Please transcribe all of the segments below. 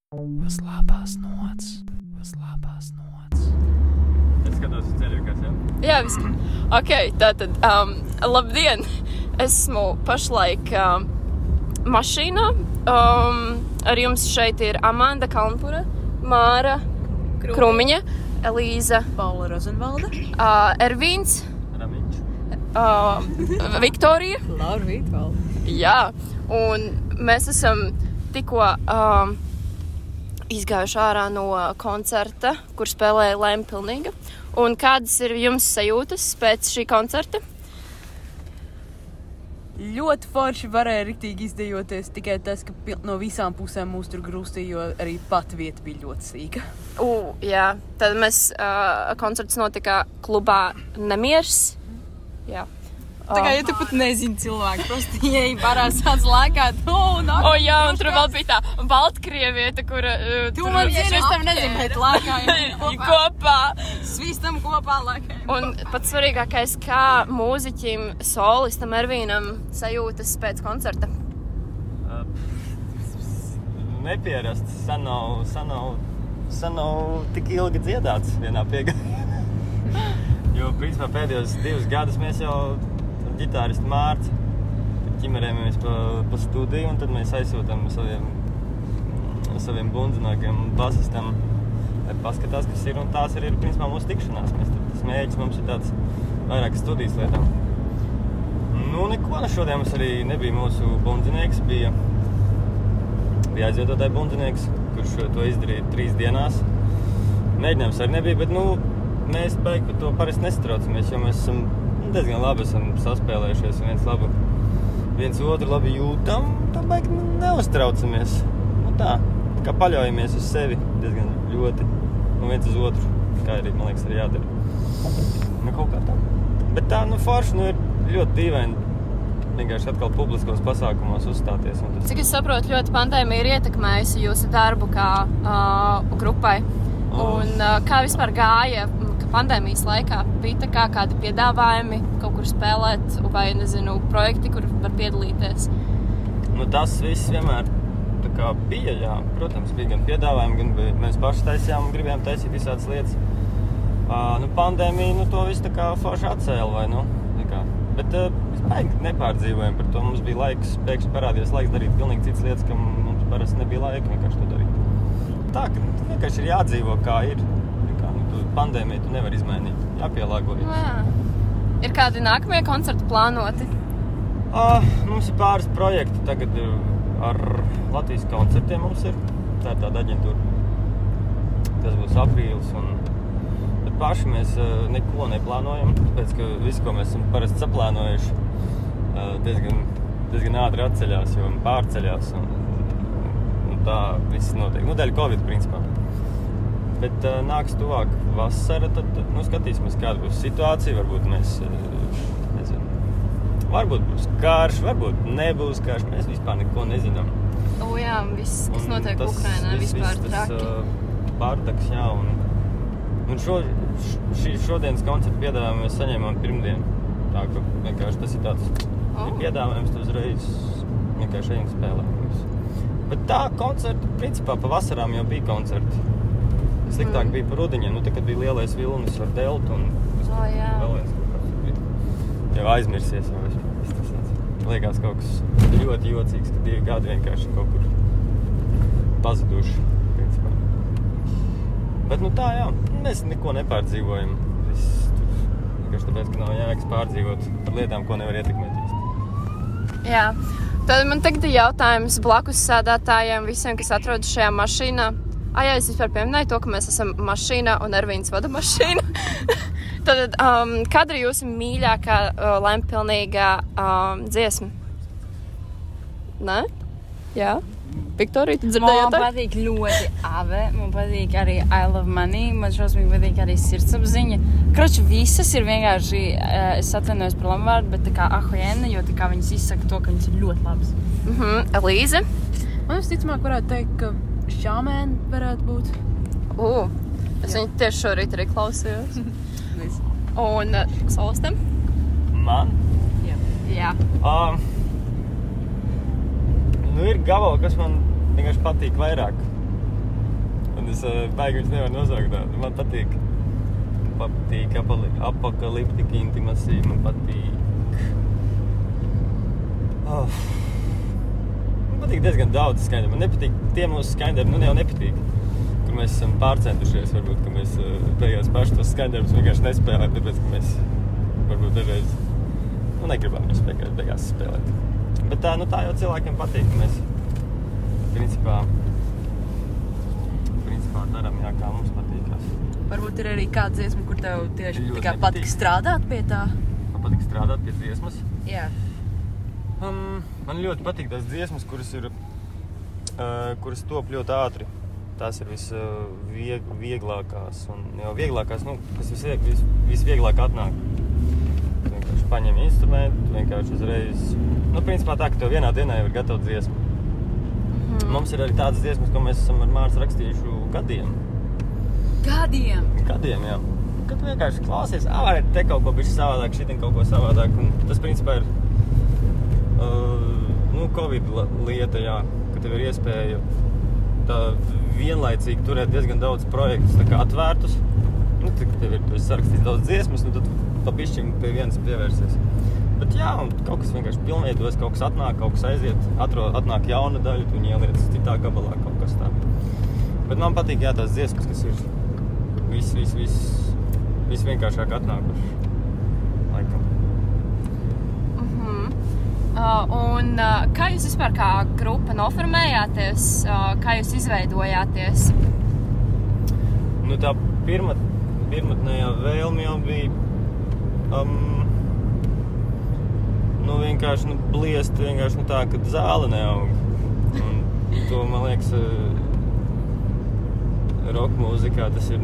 Uz labās nots. Uz labās nots. Es skatos uz ceļu, kas jau? Jā, viss. Ok, tātad, labdien! Esmu pašlaik mašīnā. Ar jums šeit ir Amanda Kalnpura, Māra Krumiņa, Elīza Paula Rozenvalda, Ervīns, Ramiņš. Viktorija. Laura Vītvalda. Jā, un mēs esam tikko izgājuši ārā no koncerta, kur spēlēja Lempilnīga. Un kādas ir jums sajūtas pēc šī koncerta? Ļoti forši varēja riktīgi izdejoties, tikai tas, ka no visām pusēm mūs tur grūstīja, jo arī pat vieta bija ļoti sīka. Jā, tad mēs koncerts notika klubā Nemiers. Jā. Tā kā, ja tu pat nezini cilvēku, prosti ieeji barā sāc lēkāt, jā, un tur vēl bija tā Baltkrievieta, kura... Tu man zini, es tev nezinu, bet lēkājam kopā. Svistam kopā lēkājam. Un pats svarīgākais, kā mūziķim, solistam Ervīnam sajūtas pēc koncerta? Nepierasts, sen nav tik ilgi dziedāts vienā piegājā. Jo, principā, pēdējos 2 gadus mēs jau ģitāristu Mārci ķimerējamies pa studiju, un tad mēs aizsūtam saviem bundzinākiem basistam, lai paskatās, kas ir, un tās ir principā mūsu tikšanās. Tas mēģis mums ir tāds vairākas studijas lietām. Nu, neko, šodien mums arī nebija mūsu bundzinieks, bija aizvietotāji bundzinieks, kurš to izdarīja 3 dienās. Mēģinājums arī nebija, bet, mēs baigi par to parasti nesatraucamies, jo mēs esam diezgan labi saspēlējušies un viens otru labi jūtam, tā baigi neuztraucamies. Tā kā paļaujamies uz sevi diezgan ļoti, un viens uz otru, kā arī, man liekas, arī jādara. Kaut kā tā. Bet tā, forši, ir ļoti dīvaini vienkārši atkal publiskos pasākumos uzstāties. Cik es saprotu, ļoti pandēmija ir ietekmējusi jūsu darbu kā grupai. Un kā vispār gāja pandēmijas laikā? Bija tā kā kādi piedāvājumi kaut kur spēlēt vai, projekti, kur var piedalīties? Tas viss vienmēr tā kā bija, jā. Protams, bija gan piedāvājumi, gan mēs paši taisījām un gribējām taisīt visādas lietas. Pandēmija, to visu tā kā forši atcēla, vai, Bet mēs baigi nepārdzīvojam par to. Mums bija laiks, pēkšņi parādījās laiks darīt pilnīgi citas lietas, ka mums parasti nebija laika vienkārši to darīt. Tā, ka vienkārši ir jādzīvo, kā ir. Pandēmiju tu nevar izmainīt, jāpielāgojas. Jā. Ir kādi nākamie koncerti plānoti? Mums ir pāris projekti tagad ar Latvijas koncertiem mums ir. Tā ir tāda aģentūra. Tas būs aprīlis, bet paši mēs neko neplānojam, tāpēc, ka visu, ko mēs esam parasti saplānojuši, diezgan ātri atceļās, jo pārceļās un tā viss notiek. Dēļ Covid, principā. Bet nāks tuvāk vasara, tad skatīsimies, kāda būs situācija. Varbūt mēs, varbūt būs karš, varbūt nebūs karš. Mēs vispār neko nezinām. Jā, viss, kas notiek Ukrainā, vispār traki. Bardaks, jā, un šodienas koncertu piedāvājumu mēs saņēmām pirmdien. Tā, ka vienkārši tas ir tāds piedāvājums, tu uzreiz vienkārši ejam spēlēt. Bet tā koncerti, principā, pa vasarām jau bija koncerti. Sliktāk bija par rudeņiem, tad, kad bija lielais vilnis ar deltu un vēl viens kaut kāds bija. Jau aizmirsies jau viss tas tāds. Liekas kaut kas ļoti jocīgs, ka 2 gadi vienkārši kaut kur pazuduši, principā. Bet tā, jā, mēs neko nepārdzīvojam. Vienkārši tāpēc, ka nav jēgas pārdzīvot par lietām, ko nevar ietekmēt. Jā, tad man tagad ir jautājums blakus sēdētājiem, visiem, kas atrodas šajā mašīnā. Jā, es vispār pieminēju to, ka mēs esam mašīnā un Ervīns vada mašīnu. Tad, kāda ir jūsu mīļākā Lempilnīgā dziesma? Nē? Jā? Viktorija, tu dzirdēji? Man patīk ļoti Ave, man patīk arī I Love Money, man šausmīgi patīk arī Sirdsapziņa. Kroči, visas ir vienkārši, es atvainojos par lamvārdu, bet tā kā ahojena, jo tā kā viņas izsaka to, ka viņas ir ļoti labas. Elīze? Man visticamāk varētu teikt, ka Šāmēn varētu būt. Es viņu tieši šorīt arī klausījos. Un solistam? Man? Jā. Ir gabali, kas man vienkārši patīk vairāk. Es baigi viņus nevaru nosaukt tādu. Man patīk apokaliptika intimasija, man patīk... Man patīk diezgan daudz skaņdari. Man nepatīk tie mūsu skaņdari, nu jau nepatīk. Kur mēs esam pārcentušies, varbūt, ka mēs beigās paši tos skaņdarus vienkārši nespēlēt, tāpēc, ka mēs varbūt dažreiz negribam viņus beigās spēlēt. Bet tā jau cilvēkiem patīk, ka mēs principā darām, jā, kā mums patīkās. Varbūt ir arī kāda dziesma, kur tev tieši tā kā patīk strādāt pie tā? Man patīk strādāt pie dziesmas? Jā. Man ļoti patīk tās dziesmas, kuras top ļoti ātri. Tās ir visvieglākās un jau vieglākās, kas visvieglāk atnāk. Tu vienkārši paņem instrumentu, tu vienkārši uzreiz... principā tā, ka tev vienā dienā jau ir gatava dziesma. Mums ir arī tādas dziesmas, ko mēs esam ar Mārtu rakstījuši gadiem. Gadiem? Gadiem, jā. Kad tu vienkārši klausies, varētu te kaut ko bišķi savādāk, šitin kaut ko savādāk. Un tas, principā, ir Covid lieta, jā, ka tev ir iespēja tā vienlaicīgi turēt diezgan daudz projektus tā kā atvērtus. Tev ir sarakstīt daudz dziesmas, tad pa bišķim pie vienas pievērsies. Bet jā, un kaut kas vienkārši pilnveidojas, kaut kas atnāk, kaut kas aiziet, atnāk jauna daļa, tu viņu ieliec citā gabalā kaut kas tā. Bet man patīk, jā, tās dziesmas, kas ir visvienkāršāk atnākuši, laikam. Un kā jūs vispār kā grupa noformējāties, kā jūs izveidojāties? Tā pirmatnējā vēlme jau bija vienkārši bliest vienkārši tā, ka zāle neaug. Un to, man liekas, rock mūzikā tas ir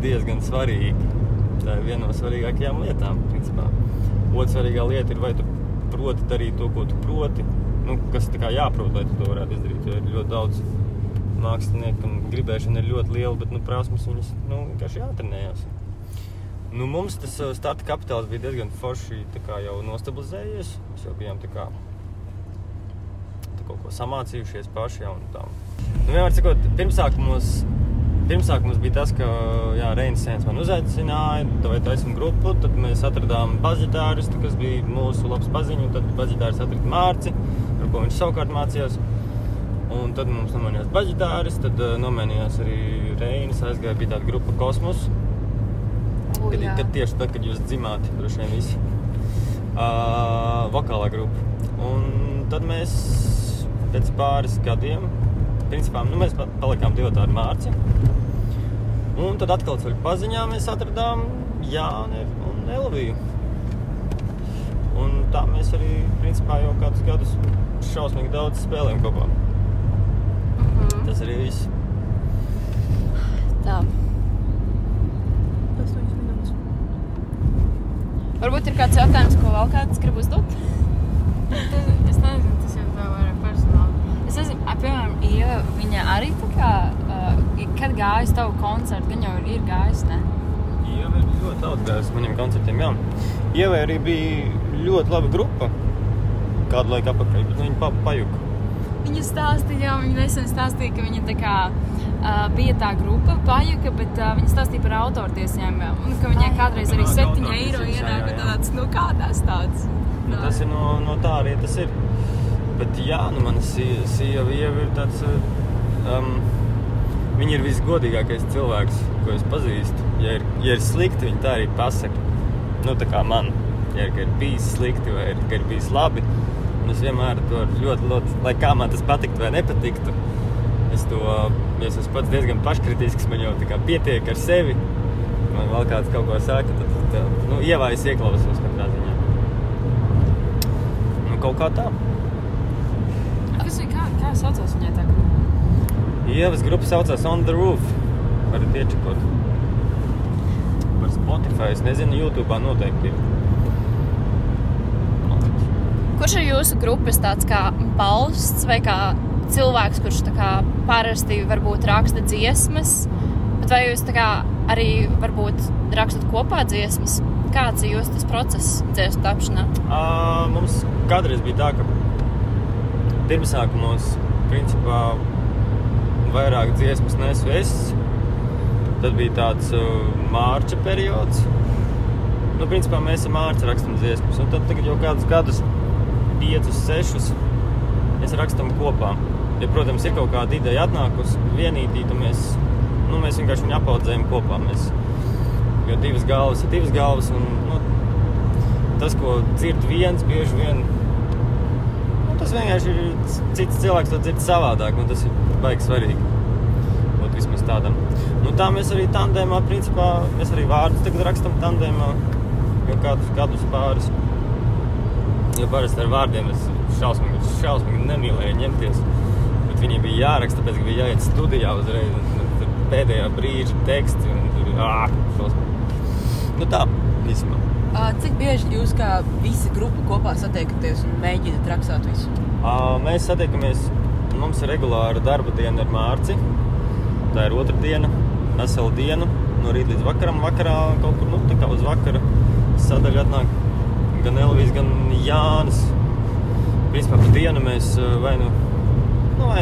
diezgan svarīgi. Tā ir viena no svarīgākajām lietām, principā. Otra svarīgā lieta ir, vai tu proti darīt to, ko tu proti, kas tā kā jāprot, lai tu to varētu izdarīt, jo ir ļoti daudz māksliniekam gribēšana ir ļoti liela, bet prasmes viņas vienkārši jātrenējās. Mums tas starta kapitāls bija diezgan forši tā kā jau nostabilizējies. Mēs jau bijām tā kaut ko samācījušies paši jau un tā. Vienmēr cikot, pirmsāk mums bija tas, ka Reinis Sēns man uzaicināja, vai taisam grupu, tad mēs atradām bazitāristu, kas bija mūsu labs paziņu, tad bazitārists atrada Mārci, ar ko viņš savukārt mācījās. Un tad mums nomainījās bazitārists, tad nomainījās arī Reinis, aizgāja, bija tāda grupa Kosmos. Tieši tad, kad jūs dzimāt, droši vien visi. Vokālā grupa. Un tad mēs pēc pāris gadiem, principā, mēs palikām divatā ar Mārci. Un tad atkal ceļu paziņā mēs atradām Jāni un Elviju. Un tā mēs arī, principā, jau kādus gadus šausmīgi daudz spēlējam kopā. Tas arī viss. Tā. Varbūt ir kāds jautājums, ko vēl kāds grib uzdot? Es nezinu, tas jau tā vairāk personāli. Es nezinu, piemēram, Ieva, viņa arī tā kā, kad gājas tavu koncertu, viņa jau ir gājis, ne? Ieva ir ļoti daudz gājis maniem koncertiem, jā. Ieva arī bija ļoti laba grupa kādu laiku apakaļ, bet viņa pajuka. Viņa stāstīja, viņa nesen stāstīja, ka viņa tā kā bija tā grupa pajuka, bet viņa stāstīja par autortiesiem, un ka viņai kādreiz arī 7 eiro ienāk, un tāds, kādās tāds? Tas ir no tā arī tas ir. Bet jā, mana sieva Ieva ir tāds, viņa ir visgodīgākais cilvēks, ko es pazīstu. Ja ir slikti, viņa tā arī pasaka. Tā kā man, ja ir bijis slikti vai ka ir bijis labi. Un es vienmēr to ļoti, lai kā man tas patiktu vai nepatiktu, es esmu pats diezgan paškritisks, man jau tā kā pietiek ar sevi. Man vēl kāds kaut ko saka, tad Ievā es ieklausos katrā ziņā. Kaut kā tā. Kā saucās viņai tā grupa? Ievas grupa saucās On The Roof. Varat iečekot. Par Spotify, es nezinu, YouTube'ā noteikti ir. Kurš ir jūsu grupas tāds kā balsts vai kā cilvēks, kurš tā kā parasti varbūt raksta dziesmas, bet vai jūs tā kā arī varbūt rakstat kopā dziesmas? Kāds ir jūsu tas process dziesmu tapšanā? Mums kādreiz bija tā, ka pirmsākumos, principā, vairāk dziesmas nesu es. Tad bija tāds mārča periods. Nu, principā mēs ar mārci rakstam dziesmas. Un tad tagad jau kādus gadus, 5, 6, mēs rakstam kopā. Ja, protams, ir kaut kāda ideja atnākusi vienītī, tad mēs vienkārši viņu apaudzējam kopā. Jo 2 galvas ir 2 galvas. Un, tas, ko dzird viens, bieži vien, tas vienkārši ir cits cilvēks, to dzird savādāk. Un tas ir baigi svarīgi. Būt vismaz tādam. Nu, tā mēs arī tandēmā, principā, mēs arī vārdus tagad rakstam tandēmā. Jau kādus gadus pāris. Jo parasti ar vārdiem es šausmīgi nemīlēju ņemties. Bet viņi bija jāraksta, tāpēc, ka bija jāiet studijā uzreiz. Un pēdējā brīža teksti. Un tur šausmīgi. Nu tā, vismā. Cik bieži jūs kā visa grupa kopā satiekaties un mēģināt rakstāt visu? Mēs satiekamies, mums ir regulāra darba diena ar Mārci. Tā ir 2. diena, vesela diena. No rīt līdz vakaram, vakarā kaut kur, tā kā uz vakara sadaļa atnāk gan Elvis, gan Jānis. Principā par dienu mēs vai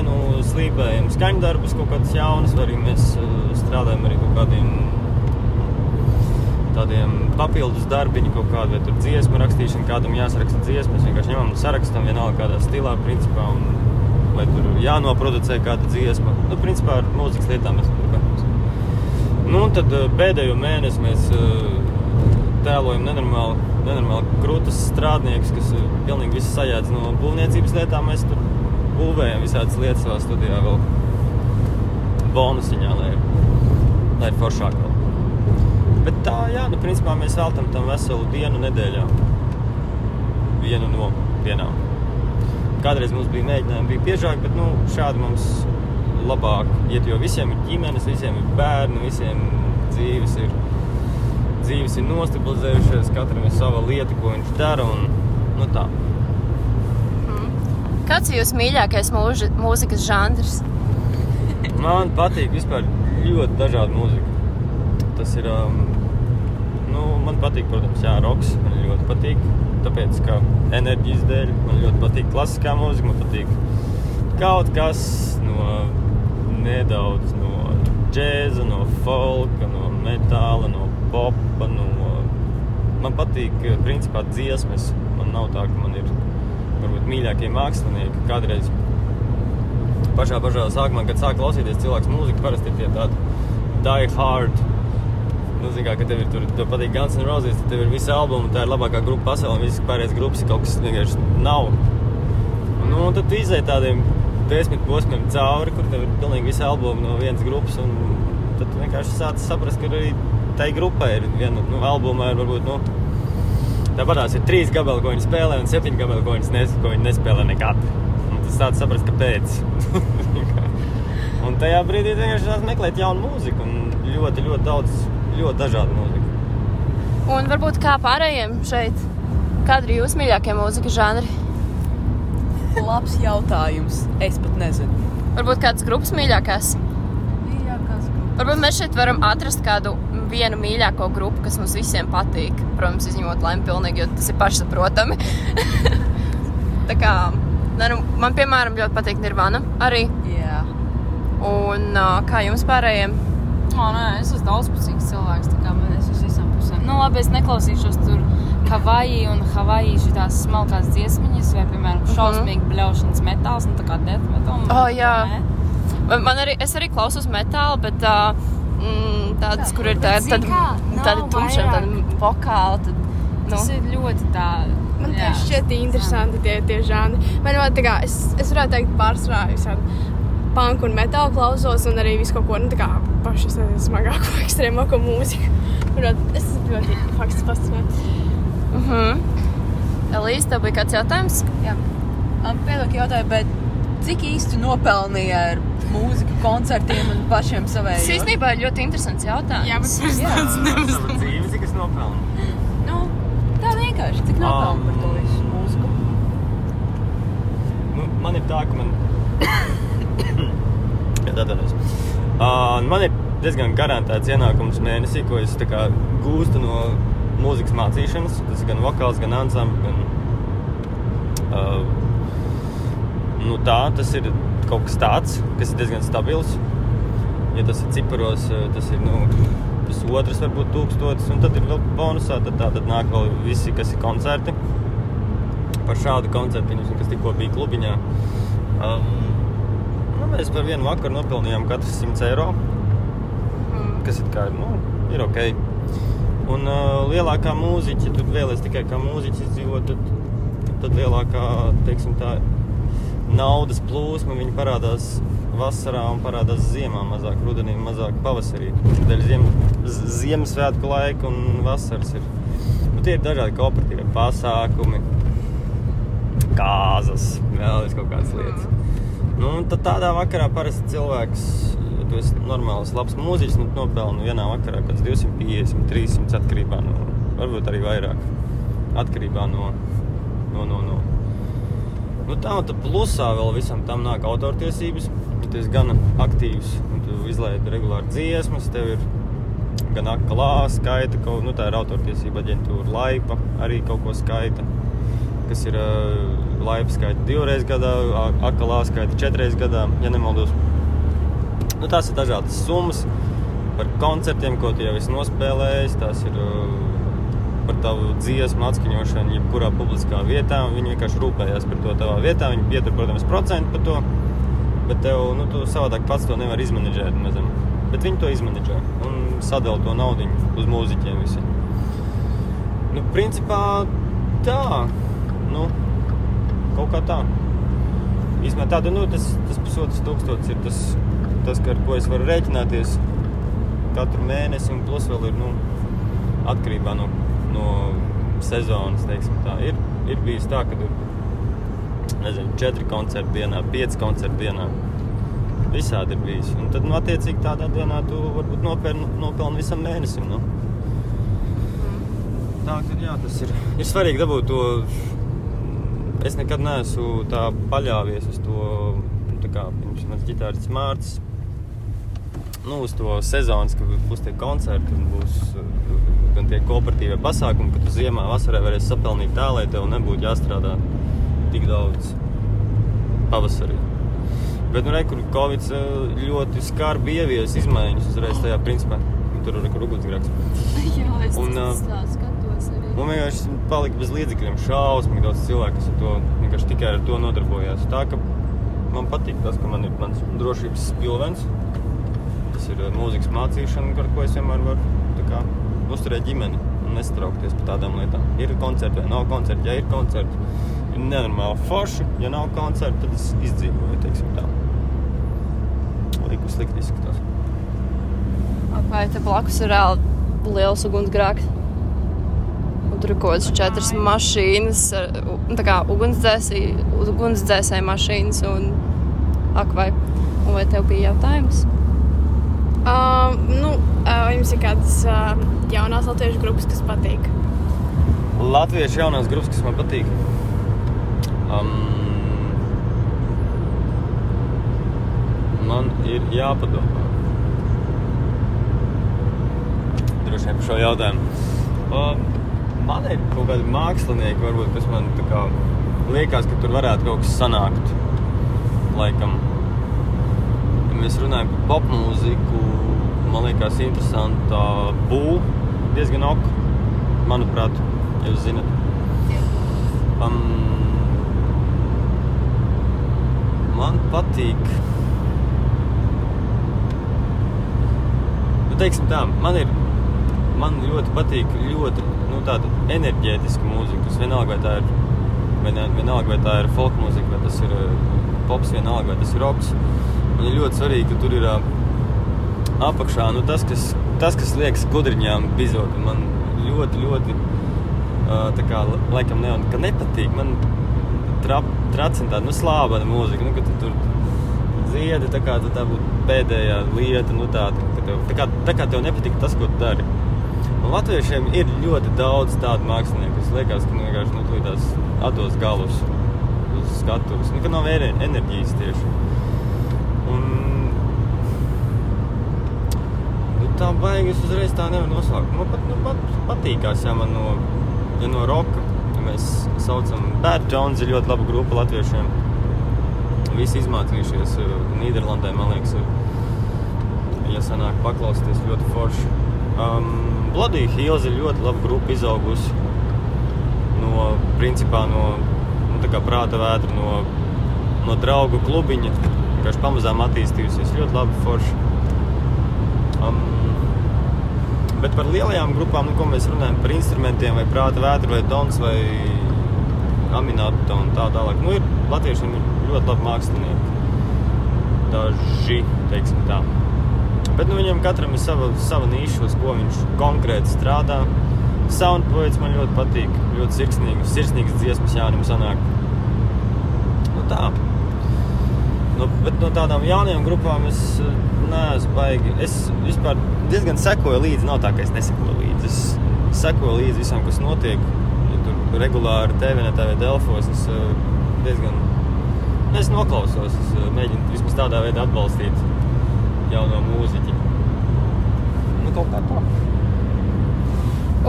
nu slīpējam skaņdarbus, kaut kādas jaunas, vai arī mēs strādājam arī kaut kādiem tādiem papildus darbiņi, kaut kādu, vai tur dziesmu rakstīšana, kādam jāsaraksta dziesmu. Mēs vienkārši ņemam un sarakstam vienalga kādā stilā, principā, un vai tur jānoproducē kāda dziesma. Nu, principā ar mūzikas lietām mēs turpināmies. Nu, un tad pēdējo mēnesi mēs tēlojam nenormāli krūtas strādniekus, kas pilnīgi visu sajēdz no būvniecības lietām. Mēs tur būvējam visādas lietas savā studijā vēl bonusiņā, lai ir foršāk vēl. Bet tā, jā, principā mēs veltam tam veselu dienu nedēļā. Vienu no dienām. Kādreiz mums bija mēģinājumi, bija biežāk, bet šādi mums labāk iet, jo visiem ir ģimenes, visiem ir bērni, visiem dzīves ir nostabilizējušies, katram ir sava lieta, ko viņš dara, un tā. Kāds ir jūs mīļākais mūzikas žanrs? Man patīk vispār ļoti dažāda mūzika. Tas ir, man patīk, protams, roks, man ļoti patīk, tāpēc, ka enerģijas dēļ, man ļoti patīk klasiskā mūzika, man patīk kaut kas nedaudz no džēza, no folka, no metāla, no popa, man patīk, principā, dziesmas. Man nav tā, ka man ir, varbūt, mīļākie mākslinieki. Kādreiz pašā sākumā, kad sāk klausīties cilvēks mūziku, parasti ir tie tādi die hard. Ka tev ir tur patīk Guns N' Roses, tad tev ir visi albumi, tā ir labākā grupa pasaulē, un visas pārējās grupas ir kaut kas vienkārši nav. Un tad tu izēji tādiem 10 posmiem cauri, kur tev ir pilnīgi visi albumi no vienas grupas, un tad tu vienkārši sāc saprast, ka arī tai grupai ir viena, albumā ir varbūt, tāpatās ir 3 gabali, ko viņi spēlē, un 7 gabali, ko viņi nespēlē nekad. Un tu sāc saprast, kāpēc. Un tajā brīdī vienkārši sāc meklēt jaunu mūziku, un ļoti, ļoti daudz, ļoti dažādu mūziku. Un varbūt kā pārējiem šeit, kādi ir jūsu mīļākie mūzikas žanri? Labs jautājums. Es pat nezinu. Varbūt kādas grupas mīļākās? Mīļākās grupas. Varbūt mēs šeit varam atrast kādu vienu mīļāko grupu, kas mums visiem patīk. Protams, izņemot Laimi pilnīgi, jo tas ir pašsaprotami. Tā kā, man piemēram ļoti patīk Nirvana arī. Jā. Un kā jums pārējiem? Es esmu daudzpusīgs cilvēks, tā kā man es uz visām pusēm. Labi, es neklausīšos tur Havaji un Havaji šitās smalkās dziesmiņas, vai, piemēram, šausmīgi bļaušanas metāls, tā kā death metal. Jā. Es arī klausos metālu, bet tādas, kur ir tādi tumšiem, tādi vokāli. Tas ir ļoti tā. Man tieši šķiet interesanti tie žanri. Man tā kā, es varētu teikt pārsvarā visādi punk un metālu klausos, un arī visu kaut ko, tā kā paši smagāko, ekstrēmāko mūziku. Es ļoti faktiski fascinēju. Elīze, tev bija kāds jautājums? Jā. Piedod jautāju, bet cik īsti nopelnīja ar mūziku koncertiem un pašiem savējos? Tas īstenībā ir ļoti interesants jautājums. Jā, bet Sava dzīve, cik es nopelnu? Tā vienkārši, cik nopelnu par to visu mūziku? Man ir tā, ka man ir diezgan garantēts ienākums mēnesī, ko es tā kā gūstu no mūzikas mācīšanas. Tas ir gan vokāls, gan ansambļi, Nu tā, tas ir kaut kas tāds, kas ir diezgan stabils. Ja tas ir ciparos, tas ir, 1,5 varbūt 1000, un tad ir vēl bonusā, tad nāk vēl visi, kas ir koncerti. Par šādu koncertu, kas tikko bija klubiņā. Mēs par vienu vakaru nopelnījām katrs 100 eiro, kas ir ok. Un lielākā mūziķa, ja tu vēlies tikai kā mūziķis izdzīvot, tad lielākā, teiksim tā, naudas plūsma, viņi parādās vasarā un parādās ziemā mazāk, rudenī mazāk pavasarī. Dēļ Ziemassvētku laika un vasaras ir. Tie ir dažādi kooperatīvi pasākumi, kāzas, vēl kaut kādas lietas. Tad tādā vakarā parasti cilvēks, ja tu esi normāls, labs mūziķis, nopelni vienā vakarā kāds 250, 300 atkarībā no, varbūt arī vairāk, atkarībā no. Tā un tad plusā vēl visam tam nāk autortiesības, ja tu esi gan aktīvs un tu izlaidi regulāri dziesmas, tev ir gan akalā skaita, tā ir autortiesība aģentūra Laipa, arī kaut ko skaita, kas ir Laipa skaita 2 reizes gadā, akalā skaita 4 reizes gadā, ja nemaldos. Tās ir dažādas summas par koncertiem, ko tu jau esi nospēlējis, tās ir par tavu dziesmu atskaņošanu jebkurā publiskā vietā, un viņi vienkārši rūpējās par to tavā vietā, viņi pietur, protams, procentu par to, bet tev, tu savādāk pats to nevar izmanedžēt, nezinu, bet viņi to izmanedžē un sadala to naudiņu uz mūziķiem visi. Principā tā, kaut kā tā. Īsmē tāda, tas 1,500 ir tas, ar ko es varu rēķināties katru mēnesi, un plus vēl ir, atkarībā no sezonas, teiksim tā. Ir bijis tā, ka ir, 4 koncerti dienā, 5 koncerti dienā. Visādi ir bijis. Un tad, attiecīgi tādā dienā tu varbūt nopelni visam mēnesim, Tā, tad jā, tas ir svarīgi dabūt to. Es nekad neesmu tā paļāvies uz to, tā kā, mans ģitārists Mārcis, uz to sezonas, ka būs tie koncerti un būs gan tie kooperatīvie pasākumi, ka tu ziemā, vasarā varēsi sapelnīt tā, lai tev nebūtu jāstrādā tik daudz pavasarī. Bet, kur Covid ļoti skarbi ievies izmaiņas uzreiz tajā principā. Tur ir ugunsgrēks. Jā, es skatos arī. Un vienkārši palika bez līdzekļiem šausmīgi daudz cilvēku, kas vienkārši tikai ar to nodarbojās. Tā, ka man patīk tas, ka man ir mans drošības pilvens. Tas ir mūzikas mācīšana, ar ko es vienmēr varu uzturēt ģimeni un nestraukties par tādām lietām. Ir koncerti vai nav koncerti, ja ir koncerti, ir nenormāli forši, ja nav koncerti, tad es izdzīvoju, teiksim tā. Liku slikti izskatās. Vai te blakus ir reāli liels ugunsgrēks? Un tur ir kaut kādas 4 mašīnas, tā kā ugunsdzēsēja mašīnas un akvai. Un vai tev bija jautājums? Jums ir kādas jaunās latviešu grupas, kas patīk? Latviešu jaunās grupas, kas man patīk? Man ir jāpadomā. Droši vien par šo jautājumu. Man ir kaut kādi mākslinieki, varbūt, kas man tā kā liekas, ka tur varētu kaut kas sanākt. Laikam. Ja mēs runājam par popmūziku, man liekas interesanta Bū, diezgan ok, manuprāt, ja jūs zinat. Man patīk, teiksim tā, man ļoti patīk tāda enerģētiska mūzika. Tas vienalga, vai tā ir folk mūzika, vai tas ir pops, vienalga, vai tas ir roks. Man ir ļoti svarīgi, ka tur ir apakšā, tas, kas liekas gudriņām bizot. Man ļoti, tā kā, laikam ka nepatīk. Man tracina tāda, slābana mūzika, ka tu tur dziedi, tā kā tā būtu pēdējā lieta, tā kā tev nepatīk tas, ko tu dari. Un latviešiem ir ļoti daudz tādu mākslinieku, kas liekas, ka vienkārši tūlītās atdos galus uz skatuves, ka nav enerģijas tieši. Un tā baigi es uzreiz tā nevaru nosaukt. Man pat patīkās, ja man no roka, ja mēs saucam Bad Tones, ir ļoti laba grupa latviešiem. visi izmācījušies Nīderlandē, man liekas, ja sanāk paklausties ļoti forši. Bloody Hills ir ļoti laba grupa izaugusi principā no tā kā prāta vētra, no draugu klubiņa, vienkārši pamazām attīstījusies, ļoti labi forši. Bet par lielajām grupām, ko mēs runājam par instrumentiem, vai prāta vētra, vai dons, vai Aminato un tā tālāk. Ir latviešiem ir ļoti labi mākslinieki. Daži, teiksim tā. Bet viņam katram ir sava niša, uz ko viņš konkrēti strādā. Soundpoets man ļoti patīk, ļoti sirsnīgas dziesmas Jānim sanāk. Tā. Bet no tādām jaunajām grupām es neesmu baigi. Es vispār diezgan sekoju līdzi, nav tā, ka es nesekoju līdzi. Es sekoju līdzi visam, kas notiek. Ja tur regulāri TV Delfos, es diezgan... Es noklausos, es mēģinu vismaz tādā veidā atbalstīt jauno mūziķi. Kaut kā tā.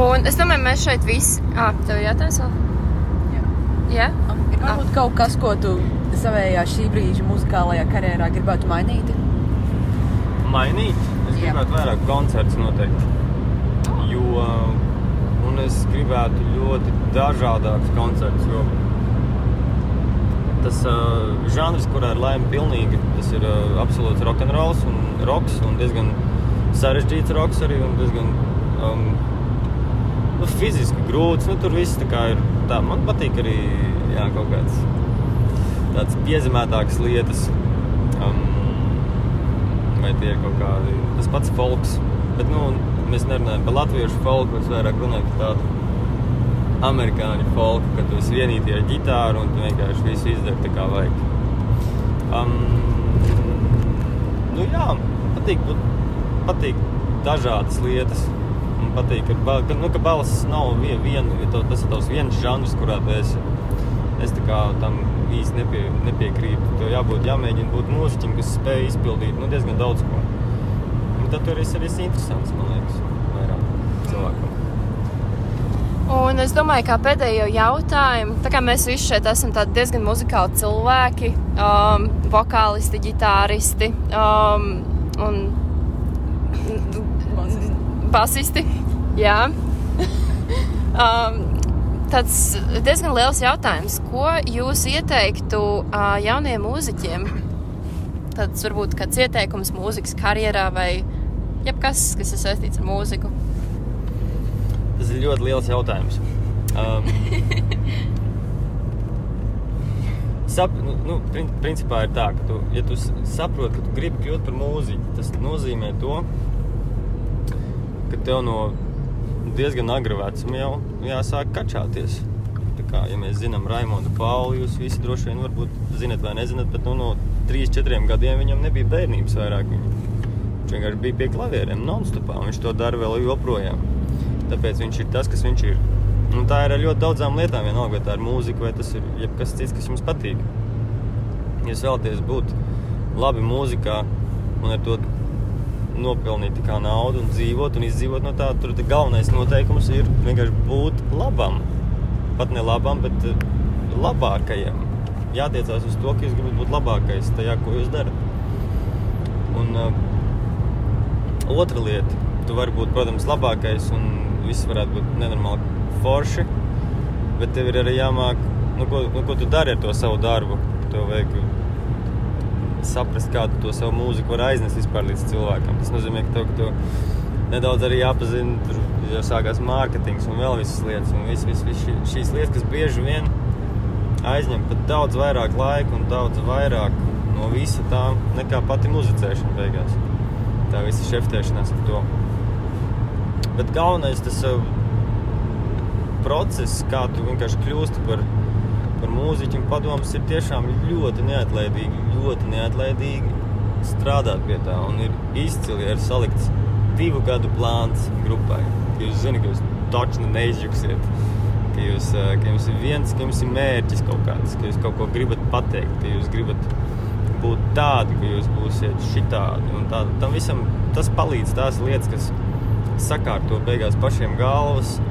Un es domāju, mēs šeit visi... Tev jātājs vēl? Jā? Ir varbūt kaut kas, ko tu savējā šī brīža muzikālajā karjerā gribētu mainīt? Mainīt? Es gribētu vairāk koncertus noteikti. Un es gribētu ļoti dažādākus koncertus, jo tas žanrs, kurā ir laime pilnīgi, tas ir absolūts rock'n'rolls un rocks un diezgan sarežģīts rocks arī un diezgan fiziski grūts. Tur viss tā kā ir tā. Man patīk arī kaut kāds tāds piezemētākas lietas. Vai tie ir kaut kādi, tas pats folks. Bet, mēs nerunājam par latviešu folku, mēs vairāk runājam par tādu amerikāņu folku, kad tu esi vienītie ar ģitāru un tu vienkārši visu izdari tā kā vajag. Patīk dažādas lietas. Man patīk, ka balss nav viena, tas ir tavs viens žanrs, kurā tu esi. Es tā kā tam īsti nepiekrītu. Tev jāmēģina būt mūziķim, kas spēj izpildīt diezgan daudz ko. Un tad tur ir arī interesants, man liekas, vairāk cilvēkam. Un es domāju, kā pēdējo jautājumu, tā kā mēs visi šeit esam tādi diezgan muzikāli cilvēki, vokālisti, ģitāristi un basisti, jā. Tāds diezgan liels jautājums. Ko jūs ieteiktu jauniem mūziķiem? Tāds varbūt kāds ieteikums mūzikas karjerā vai jebkas, kas ir saistīts ar mūziku? Tas ir ļoti liels jautājums. Principā ir tā, ka ja tu saproti, ka tu gribi kļūt par mūziķu, tas nozīmē to, ka tev no diezgan agra vecuma jau jāsāk kačāties. Tā kā, ja mēs zinām Raimondu Pauli, jūs visi droši vien varbūt zinat vai nezinat, bet no 3-4 gadiem viņam nebija bērnības vairāk. Viņš vienkārši bija pie klavieriem non-stopā, un viņš to dara vēl joprojām. Tāpēc viņš ir tas, kas viņš ir. Un tā ir ar ļoti daudzām lietām, vienalga, vai tā ir mūzika, vai tas ir jebkas cits, kas jums patīk. Ja jūs vēlaties būt labi mūzikā un ar to nopelnīt tā kā naudu un dzīvot un izdzīvot no tā, tur galvenais noteikums ir vienkārši būt labam. Pat ne labam, bet labākajam. Jātiecās uz to, ka jūs gribat būt labākais tajā, ko jūs darat. Un otra lieta, tu vari būt, protams, labākais un viss varētu būt nenormāli forši, bet tev ir arī jāmāk, ko tu dari ar to savu darbu. Tev vajag saprast, kādu to savu mūziku var aiznest vispār līdz cilvēkam. Tas nozīmē, ka tev nedaudz arī jāpazina, tur jau sākās mārketings un vēl visas lietas. Un šīs lietas, kas bieži vien aizņem pat daudz vairāk laika un daudz vairāk no visa tā, nekā pati muzicēšana beigās. Tā visa šeftēšanās ar to. Bet galvenais tas process, kā tu vienkārši kļūsti par mūziķu un padomus, ir tiešām ļoti neatlaidīgi strādāt pie tā. Un ir izcili ir salikts 2 gadu plāns grupai. Ka jūs zināt, ka jūs točni neizjuksiet. Ka jums ir mērķis kaut kāds, ka jūs kaut ko gribat pateikt, ka jūs gribat būt tādi, ka jūs būsiet šitādi. Un tam visam tas palīdz tās lietas, kas sakārto beigās pašiem galvas,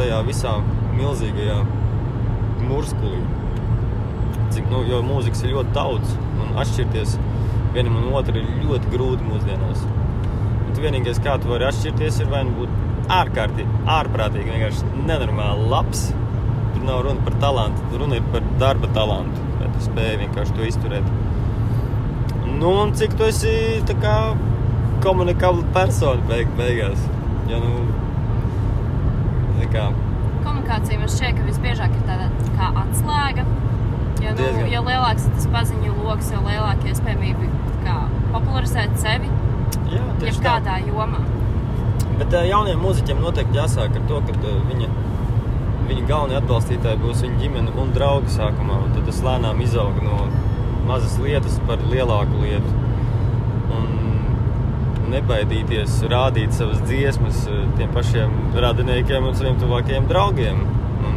tajā visā milzīgajā murskulī. jo mūzikas ir ļoti daudz, un atšķirties vienam un otru ir ļoti grūti mūsdienās. Un vienīgais, kā tu vari atšķirties, ir vai nu būt ārprātīgi, vienkārši nenormāli labs. Tur nav runa par talantu, runa ir par darba talantu, vai tu spēji vienkārši to izturēt. Nu, un cik tu esi tā kā komunikabla persona beigās. Ja, nu, tā kā... Komunikācija man šķiet, ka visbiežāk ir tāda kā atslēga. Jo lielāks ir tas paziņu loks, jo lielāka iespējamība kā popularizēt sevi. Jā, tieši kādā jomā. Bet jauniem mūziķiem noteikti jāsāk ar to, ka viņa galvenie atbalstītāji būs viņa ģimene un draugi sākumā. Un tad tas lēnām izaug no mazas lietas par lielāku lietu. Un nebaidīties rādīt savas dziesmas tiem pašiem radiniekiem un saviem tuvākajiem draugiem. Un,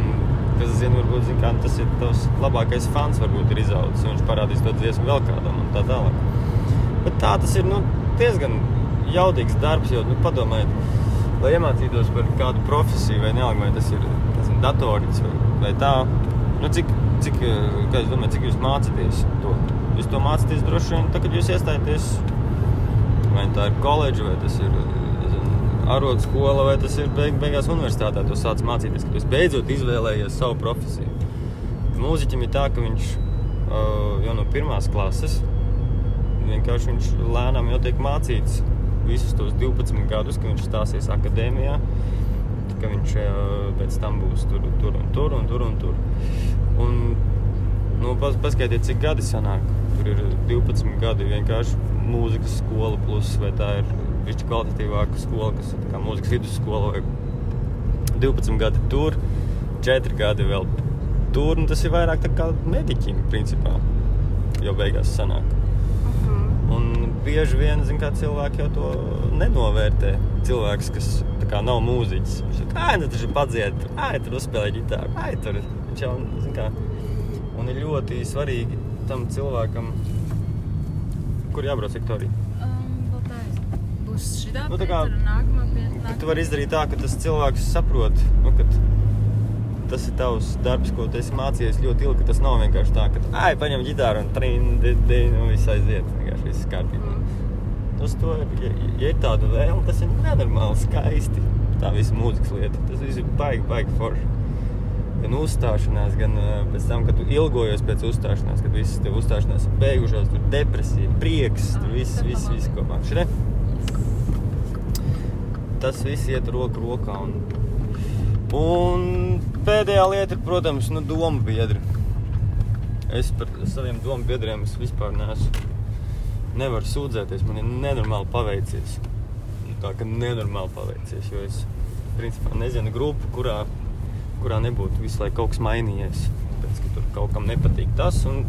kas zina, varbūt zina, kā tas ir tavs labākais fans, varbūt ir izaudzis, un viņš parādīs to dziesmu vēl kādam un tā tālāk. Bet tā tas ir, diezgan jaudīgs darbs, jo, padomājiet, lai iemācītos par kādu profesiju vai nealga, vai tas ir datorīts vai tā, kā es domāju, cik jūs mācāties to? Jūs to mācāties droši vien, kad jūs iestājaties, vai tā ir koledža, vai tas ir arotskola, vai tas ir beigās universitātā, to sāc mācīties, ka jūs beidzot izvēlējies savu profesiju. Mūziķim ir tā, ka viņš jau no 1. klases vienkārši viņš lēnām jau tiek mācīts visus tos 12 gadus, ka viņš stāsies akadēmijā, ka viņš pēc tam būs tur. Un paskaitiet, cik gadi sanāk. Tur ir 12 gadi vienkārši mūzikas skola plus, vai tā ir višķi kvalitatīvāka skola, kas ir tā kā mūzikas vidusskola, vai 12 gadi tur, 4 gadi vēl tur, un tas ir vairāk tā kā mediķim, principā, jau beigās sanāk. Un bieži vien, kā cilvēki jau to nenovērtē. Cilvēks, kas tā kā nav mūziķis. Viņš saka, tas ir padzied, tur uzspēlē ģitāru, tur. Viņš jau, kā. Un ir ļoti svarīgi tam cilvēkam, kur jābrauc, Viktorija? Būs šitā tā kā, un nākamā pie. Tu vari izdarīt tā, ka tas cilvēks saprot, ka tas ir tavs darbs, ko tu esi mācījies ļoti ilgi, ka tas nav vienkārši tā, ka paņem ģitāru un viss aiziet, vienkārši viss kārtībā. Tas to ir, ja ir tāda vēlme, tas ir nenormāli skaisti, tā visa mūzikas lieta. Tas viss ir baigi forši. Gan uzstāšanās, gan pēc tam, kad tu ilgojies pēc uzstāšanās, kad visas tev uzstāšanās ir beigušās, tur depresija, prieks, tur viss kopā. Šitē? Tas viss iet roku rokā un pēdējā lieta ir, protams, domu biedri. Es par saviem domu biedriem vispār nevaru sūdzēties. Man ir nenormāli paveicies. Tā, ka nenormāli paveicies, jo es, principā, nezinu grupu, kurā nebūtu visu laiku kaut kas mainījies. Tāpēc, ka tur kaut kam nepatīk tas. Un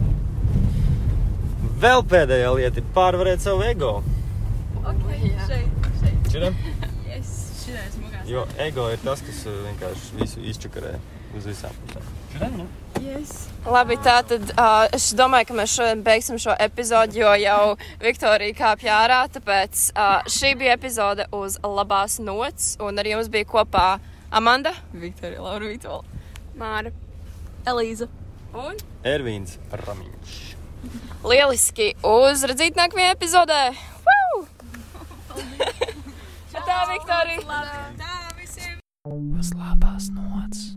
vēl pēdējā lieta ir pārvarēt savu ego. Šeit. Šitā? Šitais mugās. Jo ego ir tas, kas vienkārši visu izčakarē uz visām pusēm. Šitā, ne? Yes. Labi, tātad es domāju, ka mēs šodien beigsim šo epizodu, jo jau Viktorija kāpja ārā, tāpēc šī bija epizode uz labās nots, un ar jums bija kopā Amanda, Viktorija, Laura Vītola, Māra. Elīza un Ervīns Ramiņš. lieliski uzredzīt nākamajā epizodē. Woo! Tā, Viktorija! Uz labās nots.